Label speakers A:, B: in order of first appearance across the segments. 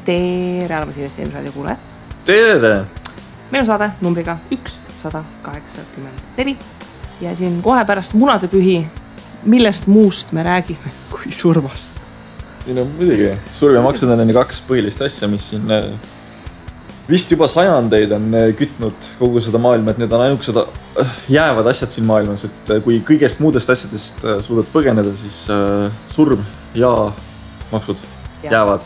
A: Tere, arvasin investeerimisraadio kuulajad.
B: Tere!
A: Meil on saade numbriga 184 ja siin kohe pärast munadepühi, millest muust me räägime kui surmast.
B: Siin on muidugi, surm ja maksud on kaks põhilist asja, mis siin vist juba sajandeid on kütnud kogu seda maailma, et need on ainukesed jäävad asjad siin maailmas, et kui kõigest muudest asjadest suudad põgeneda, siis surm ja maksud jäävad.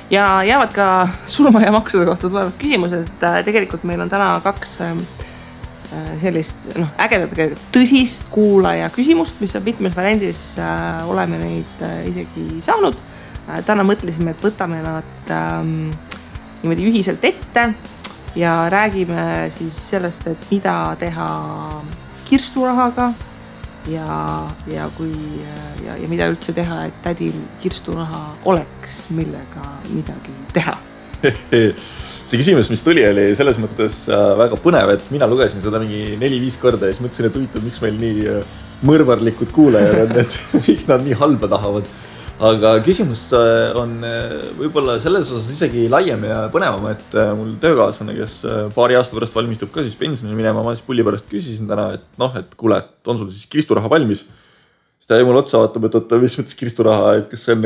A: Ja jäävad ka surma ja maksude kohta tulevad küsimused, et tegelikult meil on täna kaks sellist ägedat tõsist kuulaja küsimust, mis on mitmes variandis oleme neid isegi saanud. Täna mõtlesime, et võtame nad niimoodi ühiselt ette ja räägime siis sellest, et mida teha kirsturahaga ja mida üldse teha, et tädil kirsturaha oleks, millega midagi teha.
B: See küsimus, mis tuli, oli selles mõttes väga põnev, et mina lugesin seda mingi 4-5 korda ja siis mõtlesin, et huvitav, miks meil nii mõrvarlikud kuulajad on, et miks nad nii halba tahavad. Aga küsimus on võib-olla selles osas isegi laiem ja põnevam, et mul töökaaslane, kes paari aasta pärast valmistub ka siis pensionile minema, ma siis pulli pärast küsisin täna, et kuule, et on sul siis kirsturaha valmis? Siis ta jäi mul otsa vaatab, et mis mõttes kirsturaha, et kas see on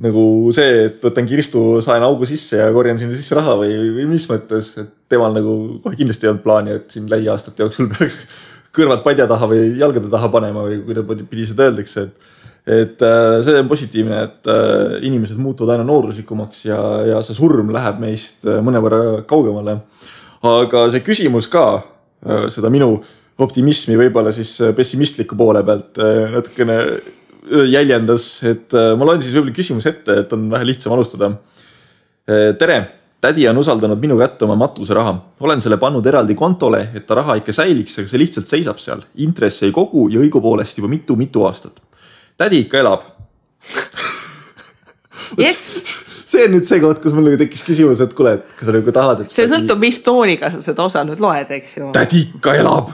B: nagu see, et võtan kirstu, saen augu sisse ja korjan sinna sisse raha või mis mõttes, et temal nagu kohe kindlasti ei olnud plaani, et siin lähiaastate jooksul peaks kõrvad padja taha või jalgade taha panema või kuidas pidi seda öeldakse, et see on positiivne, et inimesed muutuvad aina nooruslikumaks ja see surm läheb meist mõnevõrra kaugemale. Aga see küsimus ka, seda minu optimismi võib-olla siis pessimistliku poole pealt natukene jäljendas, et ma loen siis võib-olla küsimus ette, et on vähe lihtsam alustada. Tere! Tädi on usaldanud minu kätte oma matuseraha. Olen selle pannud eraldi kontole, et ta raha ikka säiliks, aga see lihtsalt seisab seal. Intress ei kogu ja õigupoolest juba mitu aastat. Tädi ikka elab.
A: Yes.
B: See on nüüd see koht, kus mul tekkis küsimus, et kuule, et kas sa nagu tahad, et
A: see sõltub, mis tooniga sa seda osa nüüd loed, eks ju.
B: Tädi ikka elab.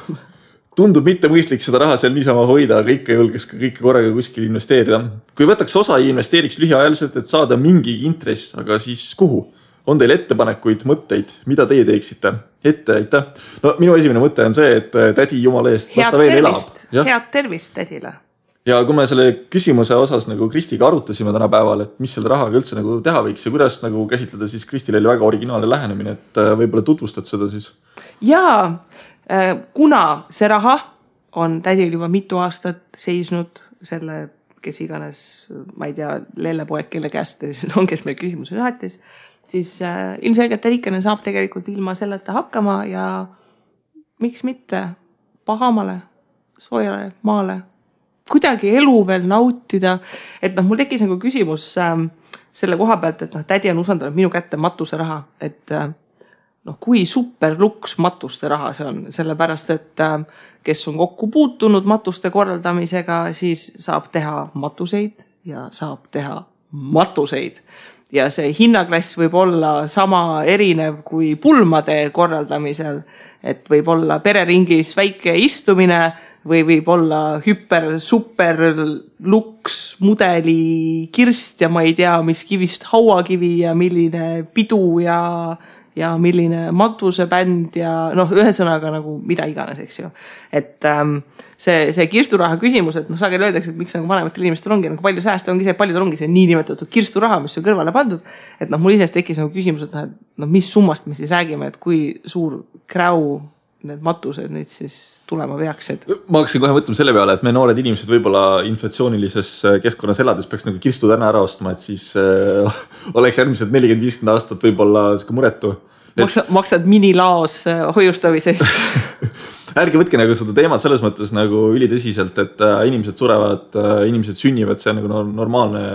B: Tundub mitte mõistlik seda raha seal niisama hoida, aga ikka julges ka kõike korraga kuskil investeerida. Kui võtaks osa ja investeeriks lühiajaliselt, et saada mingi intress, aga siis kuhu? On teil ettepanekuid, mõtteid, mida teie teeksite? Aitäh. No minu esimene mõte on see, et tädi jumala eest, las ta veel elab.
A: Head tervist tädile.
B: Ja kui me selle küsimuse osas nagu Kristiga arutasime täna päeval, et mis selle rahaga üldse nagu teha võiks ja kuidas nagu käsitleda, siis Kristil oli väga originaalne lähenemine, et võib-olla tutvustad seda siis?
A: Jaa, kuna see raha on tädil juba mitu aastat seisnud selle, kes iganes, ma ei tea, lellepoeg, kelle käest on, kes meil küsimuse saatis, siis ilmselgelt tädikene saab tegelikult ilma selleta hakkama ja miks mitte pahamale, soojale maale kuidagi elu veel nautida, et mul tekkis nagu küsimus selle koha pealt, et tädi on usaldanud minu kätte matuse raha, et kui superluks matuste raha see on, sellepärast, et kes on kokku puutunud matuste korraldamisega, siis saab teha matuseid ja saab teha matuseid. Ja see hinnaklass võib olla sama erinev kui pulmade korraldamisel, et võib olla pereringis väike istumine või võib olla super luks mudeli kirst ja ma ei tea, mis kivist hauakivi ja milline pidu ja milline matusebänd ja ühesõnaga nagu mida iganes, eks ju. Et see kirsturaha küsimus, et sageli öeldakse, et miks vanematel inimestel ongi nagu palju sääste, ongi see, et paljudel ongi see niinimetatud kirsturaha, mis on kõrvale pandud, et mul isest tekkis nagu küsimus, et mis summast me siis räägime, et kui suur kräu need matused nüüd siis tulema peaksid.
B: Ma hakkasin kohe mõtlema selle peale, et me noored inimesed võib-olla inflatsioonilises keskkonnas elades peaks nagu kirstu täna ära ostma, et siis oleks järgmised 40-50 aastat võib-olla muretu.
A: Maksad minilaos hoiustamisest.
B: Ärge võtke nagu seda teemat selles mõttes nagu ülitõsiselt, et inimesed surevad, inimesed sünnivad, see on nagu normaalne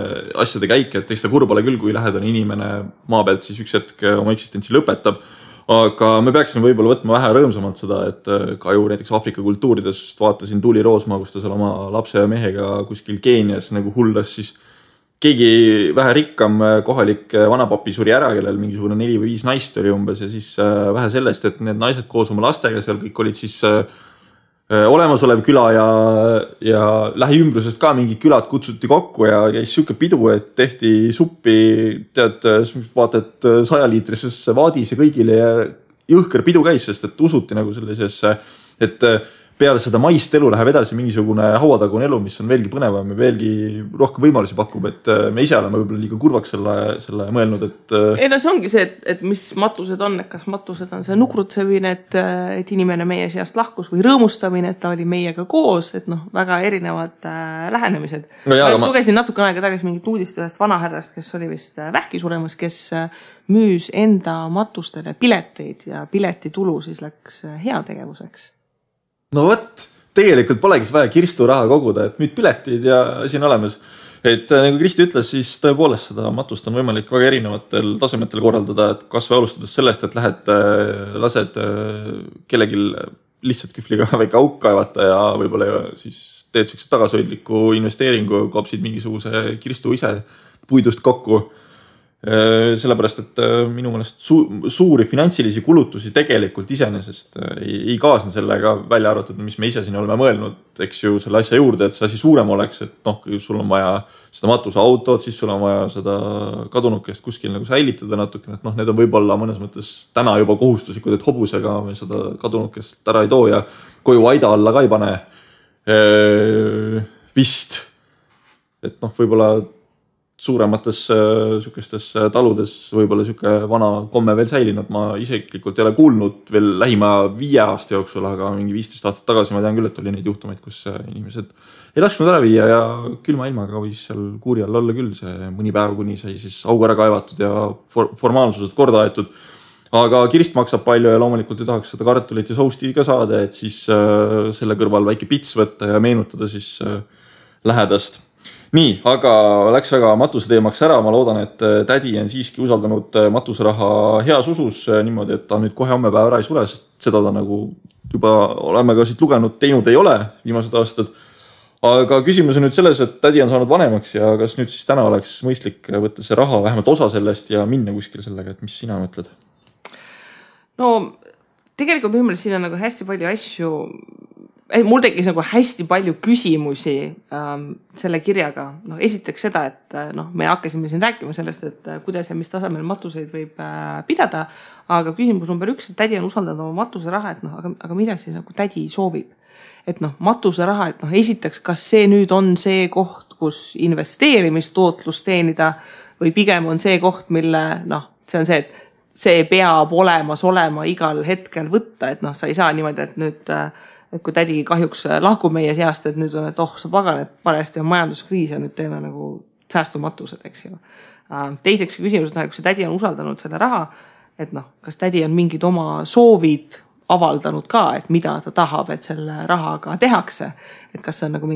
B: asjade käik, et eks ta kurb ole küll, kui lähedane inimene maa pealt siis üks hetk oma eksistentsi lõpetab. Aga me peaksime võib-olla võtma vähe rõõmsamalt seda, et ka ju näiteks Afrika kultuurides vaatasin Tuuli Roosmaa, kus ta seal oma lapse ja mehega kuskil Keenias nagu hullas, siis keegi vähe rikkam kohalik vanapapi suri ära, kellel mingisugune 4 või 5 naist oli umbes ja siis vähe sellest, et need naised koos oma lastega seal kõik olid siis olemasolev küla ja lähiümbrusest ka mingid külad kutsuti kokku ja käis siuke pidu, et tehti suppi, tead, vaatad 100-liitrisesse vaadis ja kõigile ja jõhker pidu käis, sest et usuti nagu sellisesse, et peale seda maist elu läheb edasi mingisugune hauatagune elu, mis on veelgi põnevam ja veelgi rohkem võimalusi pakub, et me ise oleme võib-olla liiga kurvaks selle mõelnud, et...
A: Ei no see ongi see, et mis matused on, et kas matused on see nukrutsemine, et inimene meie seast lahkus või rõõmustamine, et ta oli meiega koos, et noh, väga erinevad lähenemised. No ma lugesin natuke aega tagasi mingit uudist ühest vanahärrast, kes oli vist vähki suremas, kes müüs enda matustele pileteid ja piletitulu siis läks heategevuseks.
B: No võt, tegelikult polegi vaja Kirstu raha koguda, et müüd piletid ja asi on olemas. Et nagu Kristi ütles, siis tõepoolest seda matust on võimalik väga erinevatel tasemetel korraldada, et kas või alustades sellest, et lased kellelgi lihtsalt kühvliga väike auk kaevata ja võib-olla siis teed sellised tagasoidliku investeeringu, kopsid mingisuguse Kirstu ise puidust kokku. Sellepärast, et minu mõelest suuri finantsilisi kulutusi tegelikult iseenesest ei kaasne sellega välja arvatud, mis me ise siin oleme mõelnud, eks ju, selle asja juurde, et see asi suurem oleks, et noh, sul on vaja seda matusautot, siis sul on vaja seda kadunukest kuskil nagu säilitada natuke, et noh, need on võib-olla mõnes mõttes täna juba kohustuslikud, et hobusega me seda kadunukest ära ei too ja koju aida alla ka ei pane vist, et noh, võib-olla suuremates sükestes taludes võib-olla siuke vana komme veel säilinud. Ma isiklikult ei ole kuulnud veel lähima 5 aasta jooksul, aga mingi 15 aastat tagasi ma tean küll, et oli neid juhtumeid, kus inimesed ei lasknud ära viia ja külma ilmaga võis seal kuuri all olla küll see mõni päev, kuni sai siis augu ära kaevatud ja formaalsused korda aetud. Aga kirst maksab palju ja loomulikult ei tahaks seda kartulit ja sousti ka saada, et siis selle kõrval väike pits võtta ja meenutada siis lähedast. Nii, aga läks väga matuse teemaks ära. Ma loodan, et tädi on siiski usaldanud matuseraha heas usus niimoodi, et ta nüüd kohe homme päev ära ei sule, sest seda ta nagu juba oleme ka siit lugenud, teinud ei ole viimased aastad. Aga küsimus on nüüd selles, et tädi on saanud vanemaks ja kas nüüd siis täna oleks mõistlik võtta see raha, vähemalt osa sellest ja minna kuskil sellega, et mis sina mõtled?
A: No tegelikult minu meelest siin on nagu hästi palju asju, mul tekkis nagu hästi palju küsimusi selle kirjaga. No, esiteks seda, et me hakkasime siin rääkima sellest, et kuidas ja mis tasemel matuseid võib pidada, aga küsimus number 1, et tädi on usaldanud oma matuseraha, et aga mida siis nagu tädi soovib? Et matuseraha, et esiteks, kas see nüüd on see koht, kus investeerimistootlus teenida või pigem on see koht, mille see on see, et see peab olema igal hetkel võtta, et sa ei saa niimoodi, et nüüd et kui tädi kahjuks lahkub meie seast, et nüüd on, et sa pagan, et parajasti on majanduskriis ja nüüd teeme nagu säästumatused, eks ju. Teiseks küsimus, et kui see tädi on usaldanud selle raha, et kas tädi on mingid oma soovid avaldanud ka, et mida ta tahab, et selle rahaga tehakse. Et kas see on nagu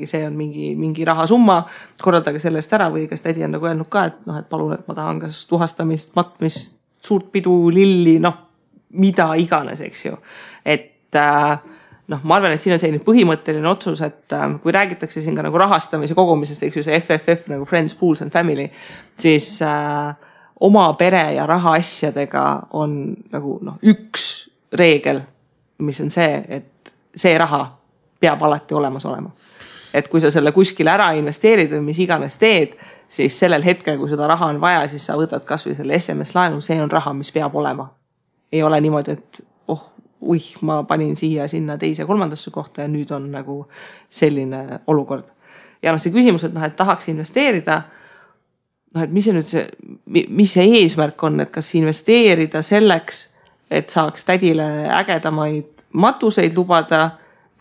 A: see on mingi rahasumma, korraldage sellest ära või kas tädi on nagu öelnud ka, et palun, et ma tahan kas tuhastamist, matmist, suurt pidu, lilli, mida iganes, eks ju. Et ma arvan, et siin on selline põhimõtteline otsus, et kui räägitakse siin ka nagu rahastamise kogumisest, eks ju see FFF nagu Friends, Fools and Family, siis oma pere ja rahaasjadega on nagu üks reegel, mis on see, et see raha peab alati olemas olema. Et kui sa selle kuskile ära investeerid või mis iganes teed, siis sellel hetkel, kui seda raha on vaja, siis sa võtad kas või selle SMS-laenu, see on raha, mis peab olema. Ei ole niimoodi, et ma panin siia sinna teise kolmandasse kohta ja nüüd on nagu selline olukord. Ja see küsimus, et tahaks investeerida, et mis see eesmärk on, et kas investeerida selleks, et saaks tädile ägedamaid matuseid lubada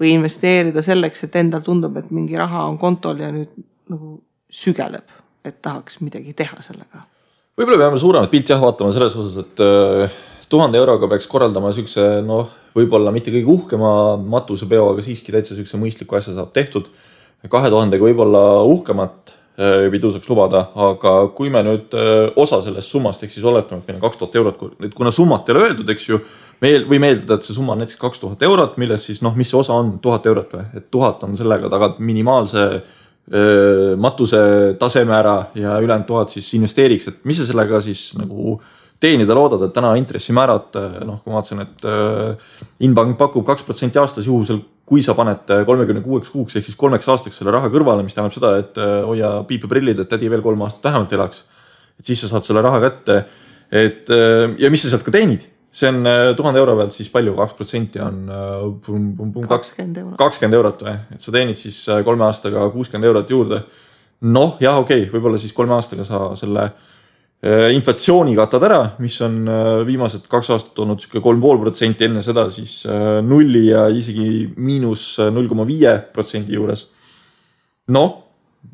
A: või investeerida selleks, et endal tundub, et mingi raha on kontol ja nüüd nagu sügeleb, et tahaks midagi teha sellega.
B: Võib-olla peame suuremat pilti vaatama selles osas, et 1000 euroga peaks korraldama sükse, võib-olla mitte kõige uhkema matusepeo, aga siiski täitsa sükse mõistliku asja saab tehtud. 2000 võib-olla uhkemat pidu saaks lubada, aga kui me nüüd osa sellest summast, eks siis oletame, et meil on 2000 eurot, kuna summat ei ole öeldud, eks ju, või meeldada, et see summa on näiteks 2000 eurot, milles siis, mis see osa on 1000 eurot või, et 1000 on sellega tagad minimaalse matuse taseme ära ja ülejäänud 1000 siis investeeriks, et mis sa sellega siis nagu teenida loodad, et täna intressimäärad, noh, kui ma vaatasin, et Inbank pakub 2% aastas juhusel, kui sa paned 36 kuuks ehk siis 3 aastaks selle raha kõrvale, mis tähendab seda, et hoia piipeprillid, et tädi veel 3 aastat vähemalt elaks. Et siis sa saad selle raha kätte. Ja mis sa sealt ka teenid? See on 1000 euro pealt siis palju, 2% on 20 eurot või? Et sa teenid siis 3 aastaga 60 eurot juurde. Noh, jah, okei, võib-olla siis 3 aastaga sa selle inflatsiooni katad ära, mis on viimased 2 aastat olnud 3,5%, enne seda siis 0 ja isegi -0,5% juures. Noh,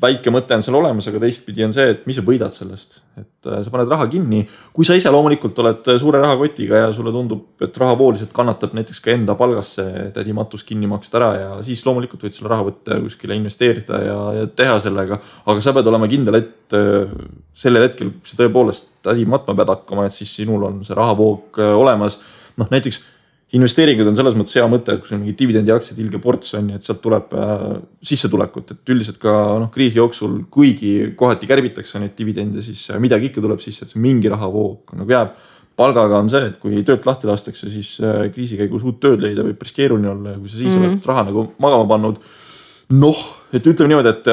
B: väike mõte on seal olemas, aga teistpidi on see, et mis sa võidad sellest. Et sa paned raha kinni. Kui sa ise loomulikult oled suure rahakotiga ja sulle tundub, et rahapooliselt kannatab näiteks ka enda palgasse tädi matus kinni maksta ära ja siis loomulikult võid selle raha võtta kuskile investeerida ja teha sellega. Aga sa pead olema kindel, et sellel hetkel, kui sa tõepoolest tädi matma pead hakkama, et siis sinul on see rahavoog olemas. Noh, näiteks investeeringud on selles mõttes hea mõte, et kui sul mingi dividendi aktsiad ilge ports on, et sealt tuleb sissetulekut, et üldiselt ka kriisi jooksul, kuigi kohati kärbitakse neid dividende, siis midagi ikka tuleb sisse, et see mingi rahavoog nagu jääb. Palgaga on see, et kui töölt lahti lastakse, siis kriisi käigus uut tööd leida võib päris keeruline olla ja kui sa siis oled raha nagu magama pannud. Noh, et ütleme niimoodi, et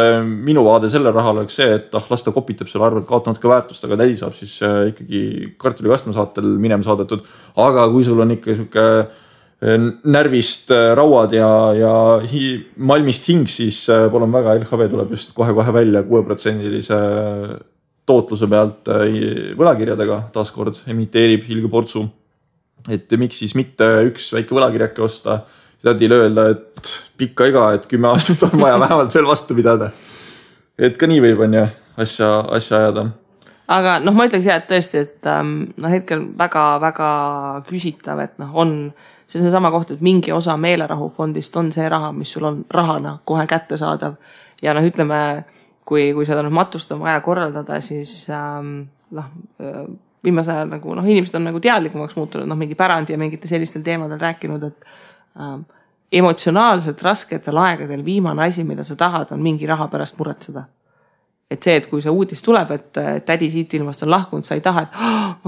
B: minu vaade selle rahal oleks see, et las ta kopitab selle arvelt kaotanud ka väärtust, aga tädi saab siis ikkagi kartulikastme saatel minema saadetud. Aga kui sul on ikka siuke närvist rauad ja malmist hing, siis palun väga, LHV tuleb just kohe välja 6%-lise tootluse pealt võlakirjadega taaskord emiteerib hilge portsu. Et miks siis mitte üks väike võlakirjake osta, tädile öelda, et pikka iga, et 10 aastat on vaja vähemalt veel vastu pidada. Et ka nii võib on ja asja ajada.
A: Aga noh, ma ütleks et tõesti, et hetkel väga küsitav, et on see sama koht, et mingi osa meelerahufondist on see raha, mis sul on rahana kohe kätte saadav. Ja ütleme, kui seda matust on vaja korraldada, siis viimase ajal nagu, inimesed on nagu teadlikumaks muutunud, mingi pärandi ja mingite sellistel teemadel rääkinud, et emotsionaalselt rasketel aegadel viimane asi, mida sa tahad, on mingi raha pärast muretseda. Et see, et kui see uudis tuleb, et tädi siit ilmast on lahkunud, sa ei taha, et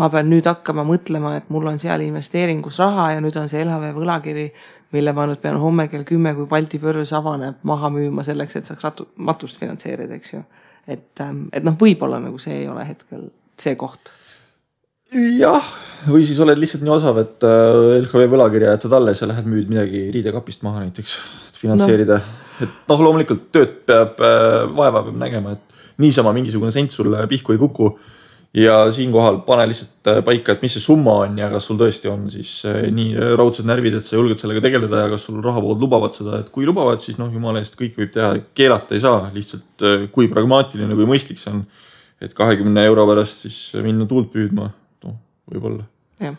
A: ma pean nüüd hakkama mõtlema, et mul on seal investeeringus raha ja nüüd on see LHV võlakiri, mille ma nüüd pean homme kell 10, kui Balti börs avaneb, maha müüma selleks, et saaks matust finantseerida, eks ju. Et võib-olla nagu see ei ole hetkel see koht.
B: Jah, või siis oled lihtsalt nii osav, et LHV võlakirja jätad alles ja lähed müüd midagi riidekapist maha näiteks, et finantseerida. Et loomulikult tööd peab vaeva peab nägema, et niisama mingisugune sent sul pihku ei kuku ja siinkohal pane lihtsalt paika, et mis see summa on ja kas sul tõesti on siis nii raudsed närvid, et sa julged sellega tegeleda ja kas sul rahavood lubavad seda, et kui lubavad, siis jumala eest kõik võib teha, keelata ei saa, lihtsalt kui pragmaatiline kui mõistlik see on, et 20 euro pärast siis minna tuult püüdma. Võib-olla.
A: Ja.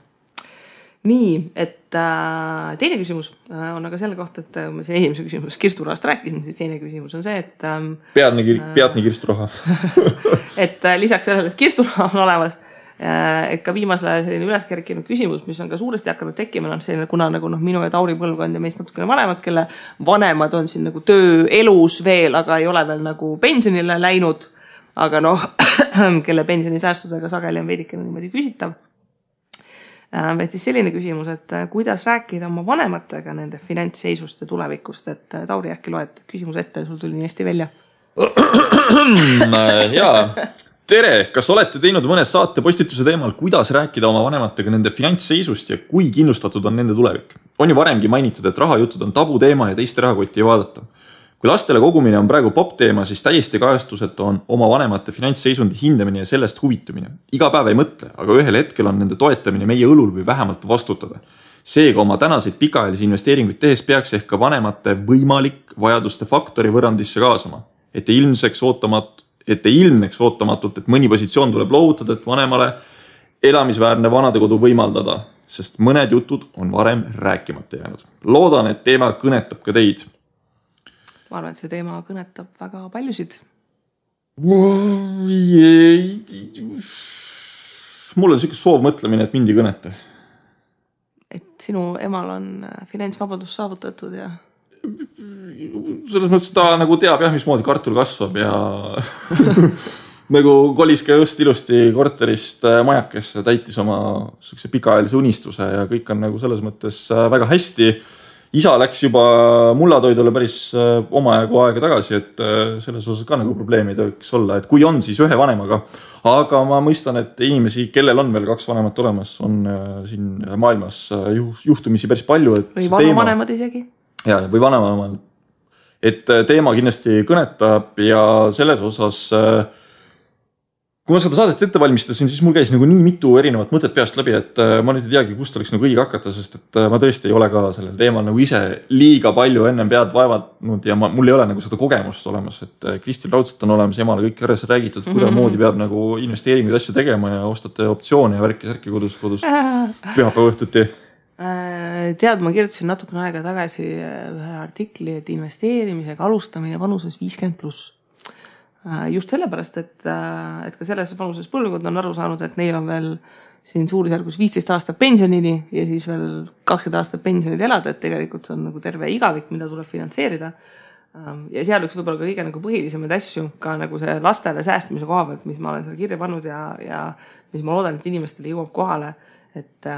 A: Nii, et teine küsimus on aga selle kohta, et ma siin esimese küsimus kirsturahast rääkisin, siis teine küsimus on see, et
B: peadni kirsturaha.
A: et lisaks sellele, et kirsturaha on olemas, et ka viimasel ajal selline üleskerkinud küsimus, mis on ka suuresti hakanud tekkima, selline, kuna nagu minu ja Tauri põlvkond ja meist natukene vanemad, kelle vanemad on siin nagu tööelus veel, aga ei ole veel nagu pensionile läinud, aga kelle pensionisäästudega sageli on veidikene niimoodi küsitav. Et siis selline küsimus, et kuidas rääkida oma vanematega nende finantsseisust ja tulevikust, et Tauri äkki loed küsimus ette ja sul tuli nii hästi välja.
B: Jaa, tere, kas olete teinud mõne saate postituse teemal, kuidas rääkida oma vanematega nende finantsseisust ja kui kindlustatud on nende tulevik? On ju varemgi mainitud, et rahajutud on tabu teema ja teiste rahakotti ei vaadata. Kui lastele kogumine on praegu pop teema, siis täiesti kajastused on oma vanemate finantsseisundi hindamine ja sellest huvitumine. Iga päev ei mõtle, aga ühel hetkel on nende toetamine meie õlul või vähemalt vastutada. Seega oma tänaseid pikaajalisi investeeringuid tehes peaks ehk ka vanemate võimalik vajaduste faktori võrrandisse kaasama. Et ei ilmneks ootamatult, et mõni positsioon tuleb loovutada, et vanemale elamisväärne vanadekodu võimaldada, sest mõned jutud on varem rääkimata jäänud. Loodan, et teema kõnetab ka teid.
A: Ma arvan, et see teema kõnetab väga paljusid.
B: Mul on selline soov mõtlemine, et mind ei kõneta.
A: Et sinu emal on finantsvabadus saavutatud ja...
B: Selles mõttes ta nagu teab jah, mismoodi kartul kasvab ja nagu kolis ka just ilusti korterist majakesse, täitis oma pikaajalise unistuse ja kõik on nagu selles mõttes väga hästi. Isa läks juba mullatoidule päris omajagu aega tagasi, et selles osas ka nagu probleemi ei tohiks olla, et kui on, siis ühe vanemaga. Aga ma mõistan, et inimesi, kellel on veel 2 vanemat olemas, on siin maailmas juhtumisi päris palju. Et
A: või vanavanemad isegi.
B: Ja, või vanavanemad. Et teema kindlasti kõnetab ja selles osas, kui ma seda saadet ette valmistasin, siis mul käis nagu nii mitu erinevat mõtet peast läbi, et ma nüüd ei teagi, kust oleks nagu õige hakata, sest et ma tõesti ei ole ka sellel teemal nagu ise liiga palju ennem pead vaevanud ja mul ei ole nagu seda kogemust olemas, et Kristil raudselt on olemas, emale kõik järjest räägitud, kuidas moodi peab nagu investeeringuid asju tegema ja ostate optsioone ja värki kodus pühapäeva õhtuti.
A: Tead, ma kirjutasin natukene aega tagasi ühe artikli, et investeerimisega alustamine vanuses 50+. Just sellepärast, et ka selles vanuses põlvkond on aru saanud, et neil on veel siin suurusjärgus 15 aastat pensionini ja siis veel 20 aastat pensionil elada, et tegelikult see on nagu terve igavik, mida tuleb finantseerida. Ja seal üks võib-olla ka kõige nagu põhilisemaid asju, ka nagu see lastele säästmise koha pealt, mis ma olen seal kirja pannud ja mis ma loodan, et inimestele jõuab kohale, et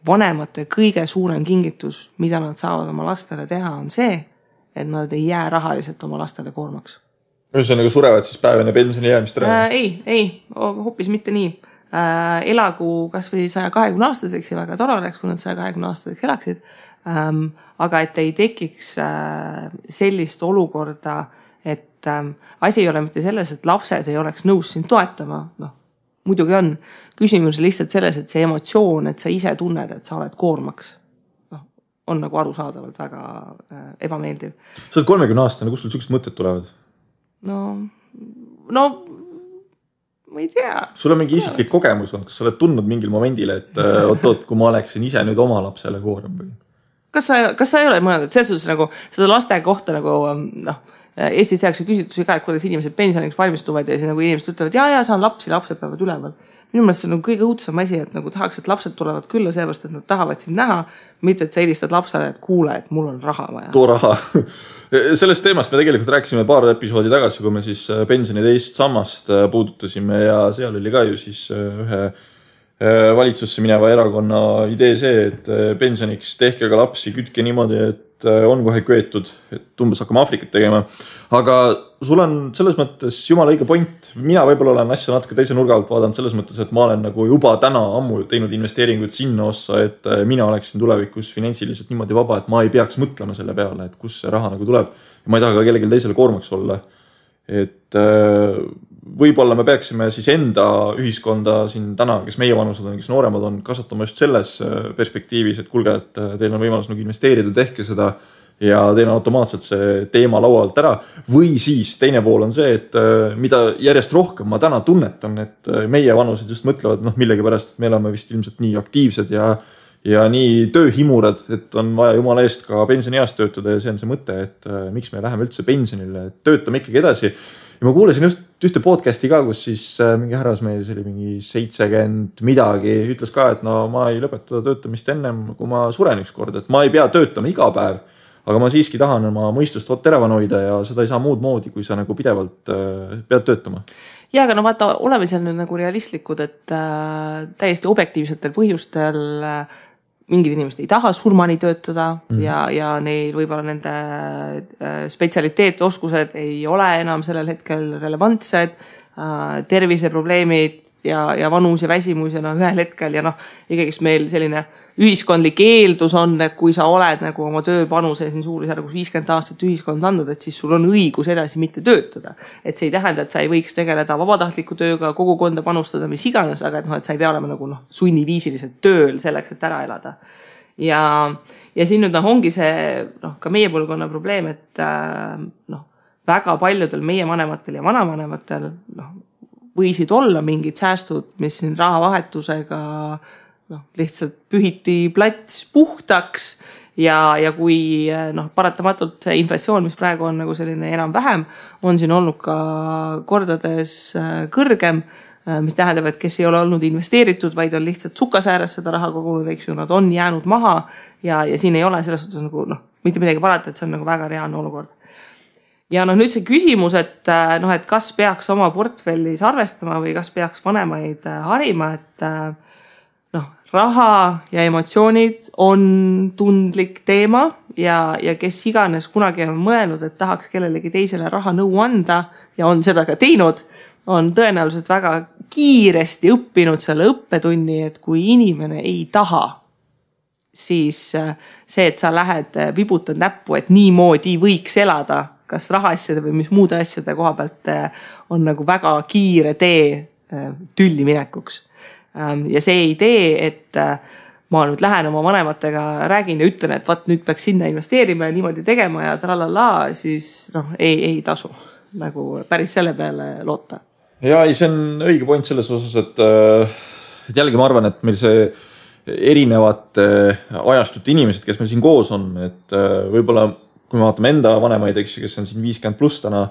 A: vanemate kõige suurem kingitus, mida nad saavad oma lastele teha, on see, et nad ei jää rahaliselt oma lastele koormaks.
B: Ühesõnaga surevad siis päevene pensioni jäämist ära?
A: Ei, hoopis mitte nii. Elagu kas või 120 aastaseks ja väga tore oleks, kui nad 120 aastaseks elaksid. Aga et ei tekiks sellist olukorda, et asi ei ole mitte selles, et lapsed ei oleks nõus sind toetama. Muidugi on. Küsimus lihtsalt selles, et see emotsioon, et sa ise tunned, et sa oled koormaks, on nagu arusaadavalt väga ebameeldiv.
B: Sa oled 30 aastane, kus sul sellised mõtted tulevad?
A: No, ma ei tea.
B: Sul on mingi isiklik kogemus on, kas sa oled tundnud mingil momendil, et oot, kui ma oleksin ise nüüd oma lapsele koorem või?
A: Kas sa ei ole mõelnud, et selles suhtes nagu seda laste kohta nagu, Eestis tehakse küsitlusi ka, et kuidas inimesed pensioniks valmistuvad ja siis nagu inimesed ütlevad, ja saan lapsed peavad üleval. Minu meelest see on kõige õudsam asi, et nagu tahaks, et lapsed tulevad külla seepärast, et nad tahavad sind näha, mitte et sa helistad lapsele, et kuule, et mul on raha vaja.
B: Too raha. Sellest teemast me tegelikult rääkisime paar episoodi tagasi, kui me siis pensioni teist sammast puudutasime ja seal oli ka ju siis ühe valitsusse mineva erakonna idee see, et pensioniks tehke ka lapsi, kütke niimoodi, et on kohe köetud, et umbes hakkame Afrikat tegema. Aga sul on selles mõttes jumala õige point. Mina võib-olla olen asja natuke teise nurga alt vaadanud selles mõttes, et ma olen nagu juba täna ammu teinud investeeringuid sinna ossa, et mina oleksin tulevikus finantsiliselt niimoodi vaba, et ma ei peaks mõtlema selle peale, et kus see raha nagu tuleb. Ja ma ei taha ka kellelgi teisele koormaks olla. Et võib-olla me peaksime siis enda ühiskonda siin täna, kes meie vanused on, kes nooremad on, kasvatama just selles perspektiivis, et kuulge, et teil on võimalus nagu investeerida, tehke seda ja teil on automaatselt see teema laualt ära. Või siis teine pool on see, et mida järjest rohkem ma täna tunnetan, et meie vanused just mõtlevad millegi pärast, et me oleme vist ilmselt nii aktiivsed ja nii tööhimurad, et on vaja jumala eest ka pensionieas töötada ja see on see mõte, et miks me läheme üldse pensionile, et töötame ikkagi edasi. Ja ma kuulasin just ühte podcasti ka, kus siis mingi härrasmees, see oli mingi 70 midagi, ütles ka, et ma ei lõpeta töötamist ennem, kui ma suren üks kord, et ma ei pea töötama iga päev, aga ma siiski tahan oma mõistust teravan hoida ja seda ei saa muud moodi, kui sa nagu pidevalt pead töötama.
A: Ja, aga vaata, oleme seal nüüd nagu realistlikud, et täiesti objektiivsetel põhjustel mingid inimesed ei taha surmani töötada ja neil võib-olla nende spetsialiteet, oskused ei ole enam sellel hetkel relevantsed, terviseprobleemid ja vanus ja väsimus ja ühel hetkel ja ikkagi meil selline ühiskondlik eeldus on, et kui sa oled nagu oma tööpanuse siin suurusjärgus 50 aastat ühiskond andnud, et siis sul on õigus edasi mitte töötada. Et see ei tähenda, et sa ei võiks tegeleda vabatahtliku tööga, kogukonda panustada, mis iganes, aga et sa ei pea olema nagu sunniviisiliselt tööl selleks, et ära elada. Ja siin nüüd ongi see ka meie põlvkonna probleem, et väga paljudel meie vanematel ja vanavanematel võisid olla mingid säästud, mis siin rahavahetusega lihtsalt pühiti plats puhtaks ja kui paratamatult see inflatsioon, mis praegu on nagu selline enam-vähem, on siin olnud ka kordades kõrgem, mis tähendab, et kes ei ole olnud investeeritud, vaid on lihtsalt sukasääres seda raha kogunud, eks ju, nad on jäänud maha ja siin ei ole selles suhtes nagu mitte midagi parata, et see on nagu väga reaalne olukord. ja nüüd see küsimus, et kas peaks oma portfellis arvestama või kas peaks vanemaid harima, et raha ja emotsioonid on tundlik teema ja kes iganes kunagi on mõelnud, et tahaks kellelegi teisele raha nõu anda ja on seda ka teinud, on tõenäoliselt väga kiiresti õppinud selle õppetunni, et kui inimene ei taha, siis see, et sa lähed vibutad näppu, et niimoodi võiks elada, kas rahaasjade või mis muude asjade koha pealt on nagu väga kiire tee tülli minekuks. Ja see idee, et ma nüüd lähen oma vanematega, räägin ja ütlen, et nüüd peaks sinna investeerima ja niimoodi tegema ja tralala, siis ei tasu nagu päris selle peale loota.
B: Ja see on õige point selles osas, et jällegi ma arvan, et meil see erinevad ajastute inimesed, kes meil siin koos on, et võib-olla kui me vaatame enda vanemaid, kes on siin 50 pluss täna,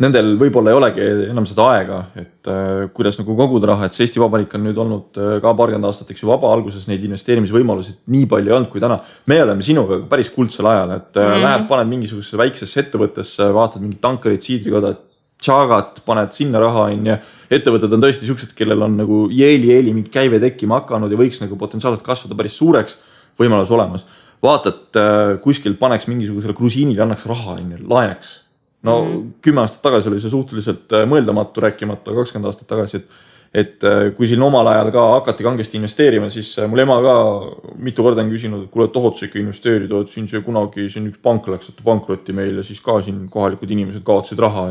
B: nendel võib-olla ei olegi enam seda aega, et kuidas nagu koguda raha, et see Eesti Vabariik on nüüd olnud ka paarkümmend aastat vaba, alguses neid investeerimisvõimalusid nii palju ei olnud kui täna. Me oleme sinuga päris kuldsel ajal, et lähed, paned mingisugusesse väiksesse ettevõttesse, vaatad mingid tankarid, siidrikoda, tšagat, paned sinna raha ja ettevõtted on tõesti siuksed, kellel on nagu jeeli mingi käive tekkima hakanud ja võiks nagu potentsiaalselt kasvada päris suureks võimalus olemas. Vaatad, kuskil paneks mingisugusele krusiinile, annaks raha, laeneks. 10 aastat tagasi oli see suhteliselt mõeldamatu, rääkimata 20 aastat tagasi, et kui siin omal ajal ka hakati kangesti investeerima, siis mul ema ka mitu korda on küsinud, et kuule, tohod sa ikka investeerida, et siin see kunagi siin üks pank läks pankrotti meil ja siis ka siin kohalikud inimesed kaotasid raha.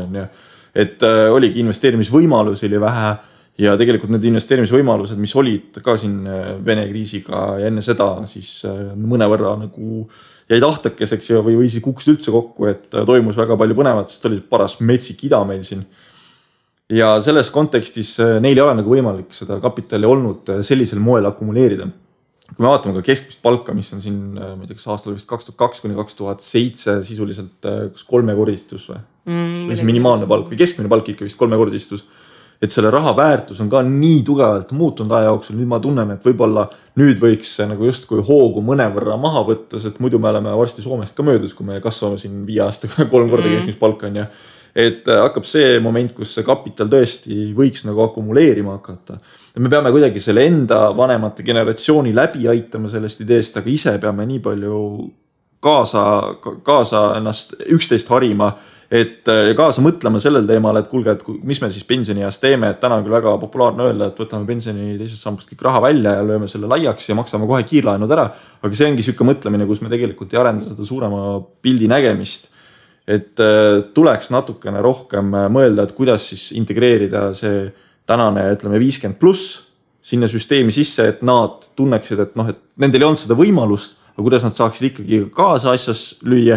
B: Et oligi investeerimisvõimalusi oli vähe ja tegelikult need investeerimisvõimalused, mis olid ka siin Vene kriisiga ja enne seda, siis mõnevõrra nagu jäi tahtakeseks või siis kukkusid üldse kokku, et toimus väga palju põnevat, sest oli paras metsik ida meil siin. Ja selles kontekstis neil ei ole nagu võimalik seda kapitali olnud sellisel moel akumuleerida. Kui me vaatame ka keskmist palka, mis on siin, ma ei tea, kas aastal vist 2002–2007 sisuliselt kolmekordistus või? Või see minimaalne palk või keskmine palk ikka vist kolmekordistus. Et selle raha väärtus on ka nii tugevalt muutunud aja jooksul. Nüüd ma tunnen, et võib-olla nüüd võiks nagu just kui hoogu mõnevõrra maha võtta, sest muidu me oleme varsti Soomest ka möödus, kui me kasvame siin 5 aastaga 3 korda keskmist palka on. Et hakkab see moment, kus see kapital tõesti võiks nagu akumuleerima hakata. Et me peame kuidagi selle enda vanemate generatsiooni läbi aitama sellest ideest, aga ise peame nii palju kaasa ennast üksteist harima, et kaasa mõtlema sellel teemal, et kuulge, et mis me siis pensionieas teeme, et täna on küll väga populaarne öelda, et võtame pensioni teisest sambast kõik raha välja ja lööme selle laiaks ja maksame kohe kiirlaenud ära, aga see ongi sükke mõtlemine, kus me tegelikult ei arenda seda suurema pildi nägemist, et tuleks natukene rohkem mõelda, et kuidas siis integreerida see tänane, ütleme 50 pluss sinna süsteemi sisse, et nad tunneksid, et et nendel ei olnud seda võimalust, aga kuidas nad saaksid ikkagi kaasa asjas lüüa.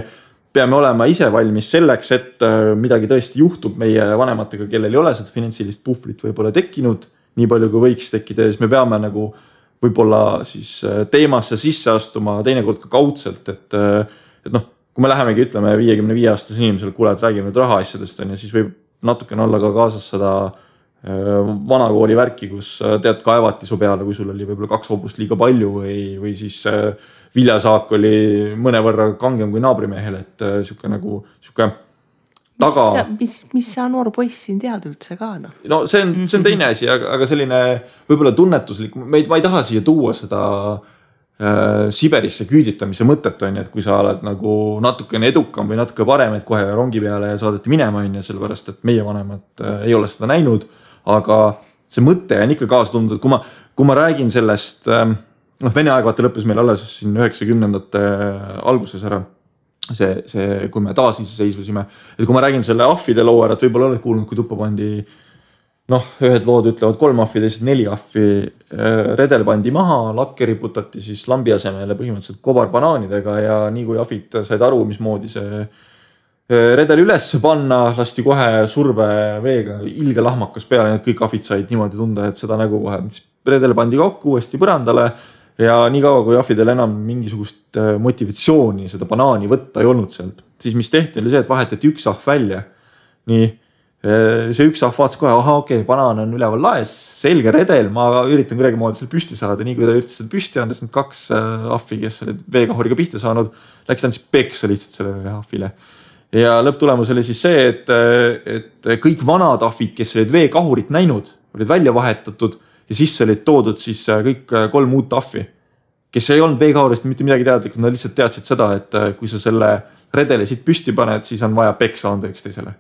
B: Peame olema ise valmis selleks, et midagi tõesti juhtub meie vanematega, kellel ei ole seda finantsilist puhvrit võib-olla tekkinud, nii palju kui võiks tekkida, ja siis me peame nagu võib-olla siis teemasse sisse astuma teinekord ka kaudselt, et kui me lähemegi, ütleme 55-aastase inimesele, kuule, et räägime nüüd rahaasjadest, siis võib natukene olla ka kaasas seda vanakooli värki, kus tead kaevati su peale, kui sul oli võib-olla 2 hobust liiga palju või siis viljasaak oli mõnevõrra kangem kui naabrimehel, et siuke nagu taga.
A: Mis sa noor poiss siin tead üldse ka?
B: No see on teine asi, aga selline võib-olla tunnetuslik, ma ei taha siia tuua seda Siberisse küüditamise mõtet on, et kui sa oled nagu natukene edukam või natuke parem, et kohe rongi peale saadeti minema on, sellepärast, et meie vanemad ei ole seda näinud, aga see mõte on ikka kaasa tundnud, et kui ma räägin sellest, Vene aeg vaata lõppes meil alles siin 90ndate alguses ära, see, kui me taas iseseisvusime, et kui ma räägin selle ahvide loo ära, et võib-olla oled kuulnud, kui tuppa pandi, ühed lood ütlevad 3 ahvi, teised 4 ahvi, redel pandi maha, lakke riputati siis lambi asemele põhimõtteliselt kobarбanaanidega ja nii kui ahvid said aru, mismoodi see redel üles panna, lasti kohe surveveega ilge lahmakas peale, need kõik ahvid said niimoodi tunda, et seda nägu kohe. Redel pandi kokku uuesti põrandale ja nii kaua, kui ahvidel enam mingisugust motivatsiooni seda banaani võtta ei olnud sealt, siis mis tehti oli see, et vahetati üks ahv välja. Nii, see üks ahv vaatas kohe, okei, banaan on üleval laes, selge redel, ma üritan kuidagi moodi seal püsti saada, nii kui ta üritas seda püsti andes, need 2 ahvi, kes olid veekahuriga pihta saanud, läks ta siis peksa lihtsalt selle ahvile. ja lõpptulemus oli siis see, et kõik vanad ahvid, kes olid veekahurit näinud, olid välja vahetatud ja sisse olid toodud siis kõik 3 uut ahvi, kes ei olnud veekahurist mitte midagi teadlikud, nad lihtsalt teadsid seda, et kui sa selle redeli siit püsti paned, siis on vaja peksa anda üksteisele.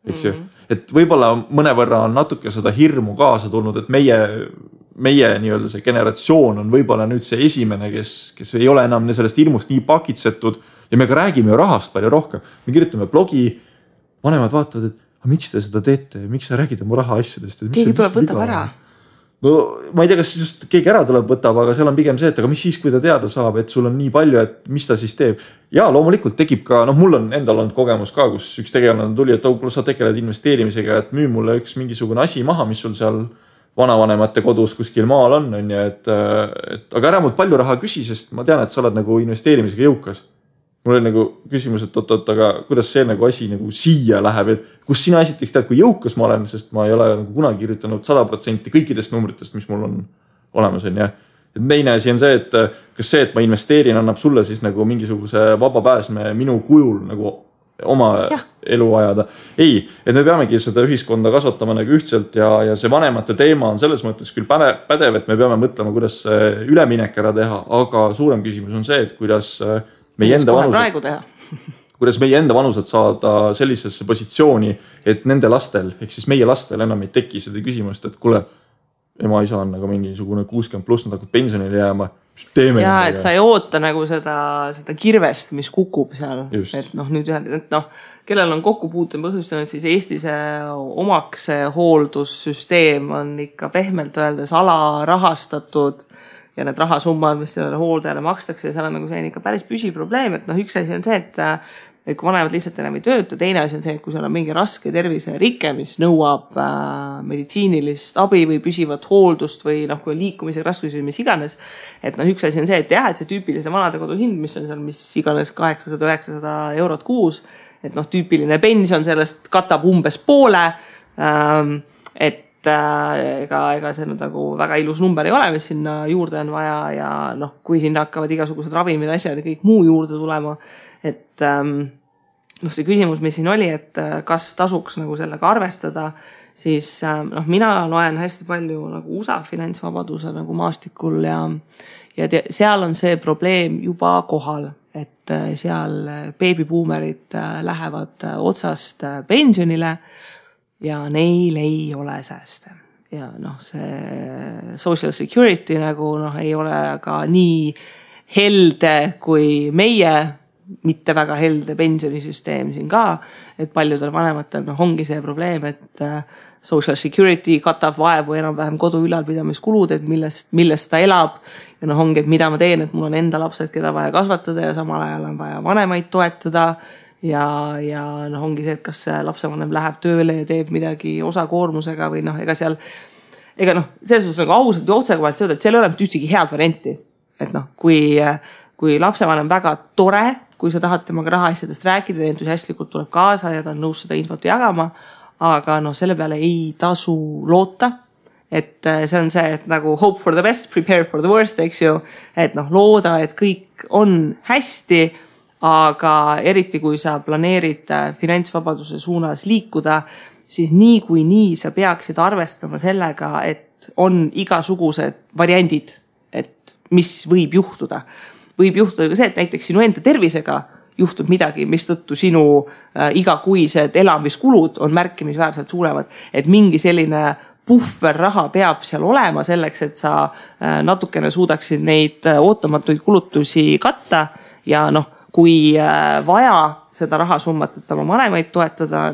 B: Eks ju? Et võibolla mõnevõrra on natuke seda hirmu kaasa tulnud, et meie nii-öelda see generatsioon on võibolla nüüd see esimene, kes ei ole enam sellest hirmust nii pakitsetud ja me ka räägime ju rahast palju rohkem. Me kirjutame blogi, vanemad vaatavad, et miks te seda teete, miks sa räägid oma raha asjadest?
A: Keegi tuleb võtab ära.
B: No ma ei tea, kas just keegi ära tuleb võtab, aga seal on pigem see, et aga mis siis, kui ta teada saab, et sul on nii palju, et mis ta siis teeb. Ja loomulikult tekib ka, mul on endal olnud kogemus ka, kus üks tegelane tuli, et sa tegeled investeerimisega, et müü mulle üks mingisugune asi maha, mis sul seal vanavanemate kodus kuskil maal on, aga ära mult palju raha küsi, sest ma tean, et sa oled nagu investeerimisega jõukas. Mul oli nagu küsimus, et aga kuidas see nagu asi nagu siia läheb, et kus sina esiteks tead, kui jõukas ma olen, sest ma ei ole nagu kunagi kirjutanud 100% kõikidest numbritest, mis mul on olemas. Ja teine asi on see, et kas see, et ma investeerin, annab sulle siis nagu mingisuguse vaba pääsme minu kujul nagu oma elu ajada. Ei, et me peamegi seda ühiskonda kasvatama nagu ühtselt ja see vanemate teema on selles mõttes küll pädev, et me peame mõtlema, kuidas üleminek ära teha, aga suurem küsimus on see, et kuidas meie enda vanused saada sellisesse positsiooni, et nende lastel, ehk siis meie lastel enam ei teki seda küsimust, et kuule, ema isa on nagu mingisugune 60+, nad hakkab pensionile jääma.
A: Ja, et sa ei oota nagu seda kirvest, mis kukub seal. Just. Et nüüd kellel on kokkupuute põhjustanud, siis Eestis omaks hooldussüsteem on ikka pehmelt öeldes alarahastatud ja need rahasummad, mis sellele hooldajale makstakse, seal on nagu see ikka päris püsiprobleem, et üks asi on see, et kui vanemad lihtsalt enam ei tööta, teine asi on see, et kui seal on mingi raske terviserikke, mis nõuab meditsiinilist abi või püsivat hooldust või kui on liikumisega raskusi või mis iganes, et üks asi on see, et see tüüpilise vanadekodu hind, mis on seal mis iganes 800-900 eurot kuus, et tüüpiline pension sellest katab umbes poole, et ega see nagu väga ilus number ei ole, mis sinna juurde on vaja ja kui sinna hakkavad igasugused ravimid, asjad ja kõik muu juurde tulema, et see küsimus, mis siin oli, et kas tasuks nagu sellega arvestada, siis mina loen hästi palju nagu USA finantsvabaduse nagu maastikul ja seal on see probleem juba kohal, et seal beebibuumerid lähevad otsast pensionile ja neil ei ole sääste. Ja see social security nagu ei ole ka nii helde kui meie mitte väga helde pensionisüsteem siin ka, et paljudel vanematel ongi see probleem, et social security katab vaevu enam-vähem kodu ülalpidamiskulud, et millest ta elab ja ongi, et mida ma teen, et mul on enda lapsed, keda vaja kasvatada ja samal ajal on vaja vanemaid toetada ja ongi see, et kas lapsevanem läheb tööle ja teeb midagi osakoormusega või ega seal selles suhtes nagu ausalt ja otsekohalt öelda, et seal ei ole ühtegi head varianti, et kui lapsevanem väga tore, kui sa tahad temaga rahaasjadest rääkida, entusiastlikult tuleb kaasa ja ta on nõus seda infot jagama, aga selle peale ei tasu loota, et see on see, et nagu hope for the best, prepare for the worst, eks ju, et looda, et kõik on hästi, aga eriti kui sa planeerid finantsvabaduse suunas liikuda, siis nii kui nii sa peaksid arvestama sellega, et on igasugused variandid, et mis võib juhtuda. Võib juhtuda ka see, et näiteks sinu enda tervisega juhtub midagi, mis tõttu sinu igakuised elamiskulud on märkimisväärselt suuremad, et mingi selline puhverraha peab seal olema selleks, et sa natukene suudaksid neid ootamatuid kulutusi katta ja kui vaja seda rahasummat, et oma vanemaid toetada,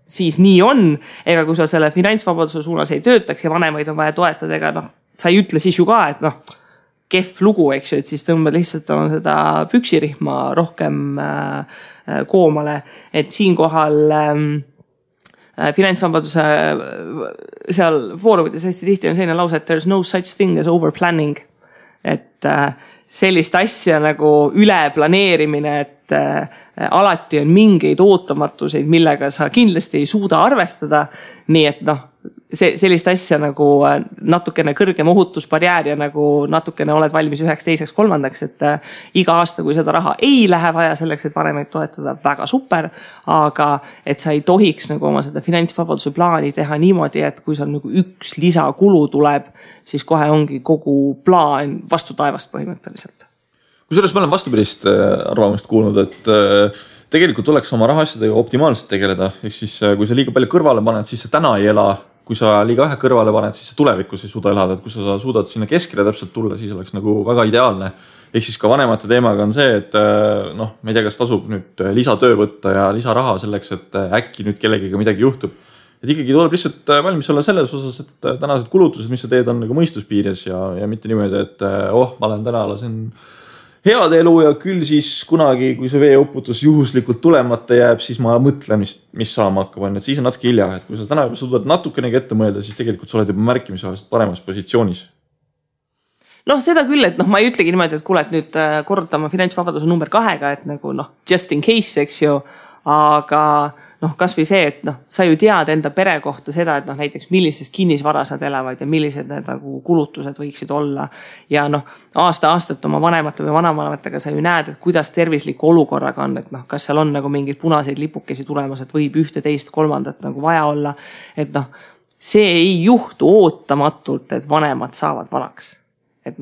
A: siis nii on, ega kui sa selle finantsvabaduse suunas ei töötaks ja vanemaid on vaja toetada, ega sa ei ütle siis ju ka, et kehv lugu, eks ju, et siis tõmbad lihtsalt seda püksirihma rohkem koomale, et siinkohal finantsvabaduse seal foorumites hästi tihti on selline lause, et there's no such thing as overplanning, et sellist asja nagu üleplaneerimine, et alati on mingeid ootamatuseid, millega sa kindlasti ei suuda arvestada, nii et sellist asja nagu natukene kõrgem ohutusbarjäär ja nagu natukene oled valmis 1, 2, 3, et iga aasta, kui seda raha ei lähe vaja selleks, et vanemaid toetada, väga super, aga et sa ei tohiks nagu oma seda finantsvabaduse plaani teha niimoodi, et kui seal nagu üks lisakulu tuleb, siis kohe ongi kogu plaan vastu taevast põhimõtteliselt.
B: Kusjuures ma olen vastupidist arvamust kuulnud, et tegelikult tuleks oma rahasjadega optimaalselt tegeleda. Ehk siis, kui sa liiga palju kõrvale paned, siis sa täna ei ela. Kui sa liiga vähe kõrvale paned, siis sa tulevikus ei suuda elada. Et kui sa suudad sinna keskele täpselt tulla, siis oleks nagu väga ideaalne. Ehk siis ka vanemate teemaga on see, et ma ei tea, kas tasub nüüd lisatöö võtta ja lisaraha selleks, et äkki nüüd kellegiga midagi juhtub. Et ikkagi tuleb lihtsalt valmis olla selles osas, et tänased kulutused, mis sa teed, on nagu mõistuspiires ja mitte niimoodi, et ma olen täna lasen head elu ja küll siis kunagi, kui see veeuputus juhuslikult tulemata jääb, siis ma mõtlen, mis saama hakkab. Et siis on natuke hilja, et kui sa täna juba suudad natukenegi ette mõelda, siis tegelikult sa oled juba märkimisväärselt paremas positsioonis.
A: Seda küll, et ma ei ütlegi niimoodi, et kuule, et nüüd korrutama finantsvabaduse number 2-ga, et nagu just in case, eks ju, aga kas või see, et sa ju tead enda pere kohta seda, et näiteks millisest kinnisvaras nad elavad ja millised need nagu kulutused võiksid olla. Ja aasta-aastalt oma vanemate või vanavanematega sa ju näed, et kuidas tervisliku olukorraga on, et kas seal on nagu mingeid punaseid lipukesi tulemas, et võib 1, 2, 3 nagu vaja olla. Et see ei juhtu ootamatult, et vanemad saavad vanaks. Et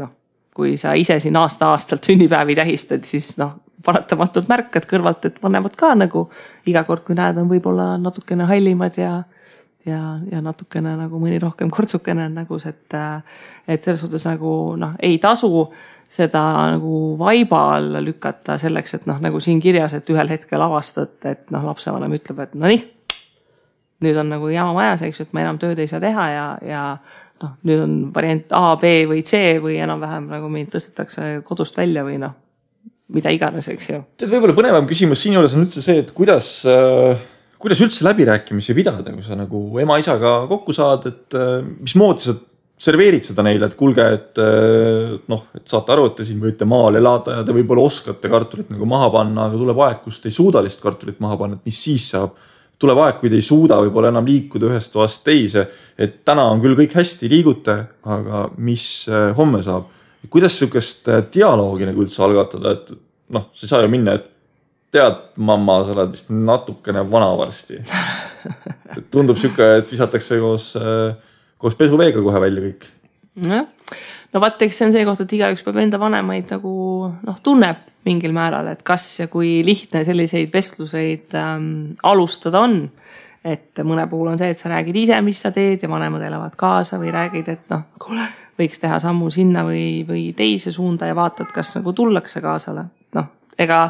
A: kui sa ise siin aasta-aastalt sünnipäevi tähistad, siis paratamatult märkad kõrvalt, et vanemad ka nagu iga kord, kui näed, on võib-olla natukene hallimad ja natukene nagu mõni rohkem kortsukene nagu see, et selles suhtes nagu ei tasu seda nagu vaiba alla lükata selleks, et nagu siin kirjas, et ühel hetkel avastad, et lapsevanem ütleb, et nüüd on nagu jama majas, eks, et ma enam tööd ei saa teha ja nüüd on variant A, B või C või enam-vähem nagu mind tõstetakse kodust välja või mida iganes, eks ju.
B: Võib-olla põnevam küsimus siin juures on üldse see, et kuidas üldse läbirääkimisi pidada, kui sa nagu ema-isaga kokku saad, et mismoodi sa serveerid seda neile, et kuulge, et saate aru, et te siin võite maal elada ja te võib-olla oskate kartulit nagu maha panna, aga tuleb aeg, kus te ei suuda lihtsalt kartulit maha panna, et mis siis saab. Tuleb aeg, kui te ei suuda võib-olla enam liikuda ühest toast teise, et täna on küll kõik hästi, liigute, aga mis homme saab? Kuidas sükest dialoogi nagu üldse algatada, et sa ei saa ju minna, et tead, mamma, sa oled vist natukene vana varsti. Tundub süke, et visatakse koos pesuveega kohe välja kõik.
A: Vaat, eks see on see koht, et igaüks peab enda vanemaid nagu tunneb mingil määral, et kas ja kui lihtne selliseid vestluseid alustada on. Et mõne puhul on see, et sa räägid ise, mis sa teed ja vanemad elavad kaasa või räägid, et kuule, võiks teha sammu sinna või teise suunda ja vaatad, kas nagu tullakse kaasale. Ega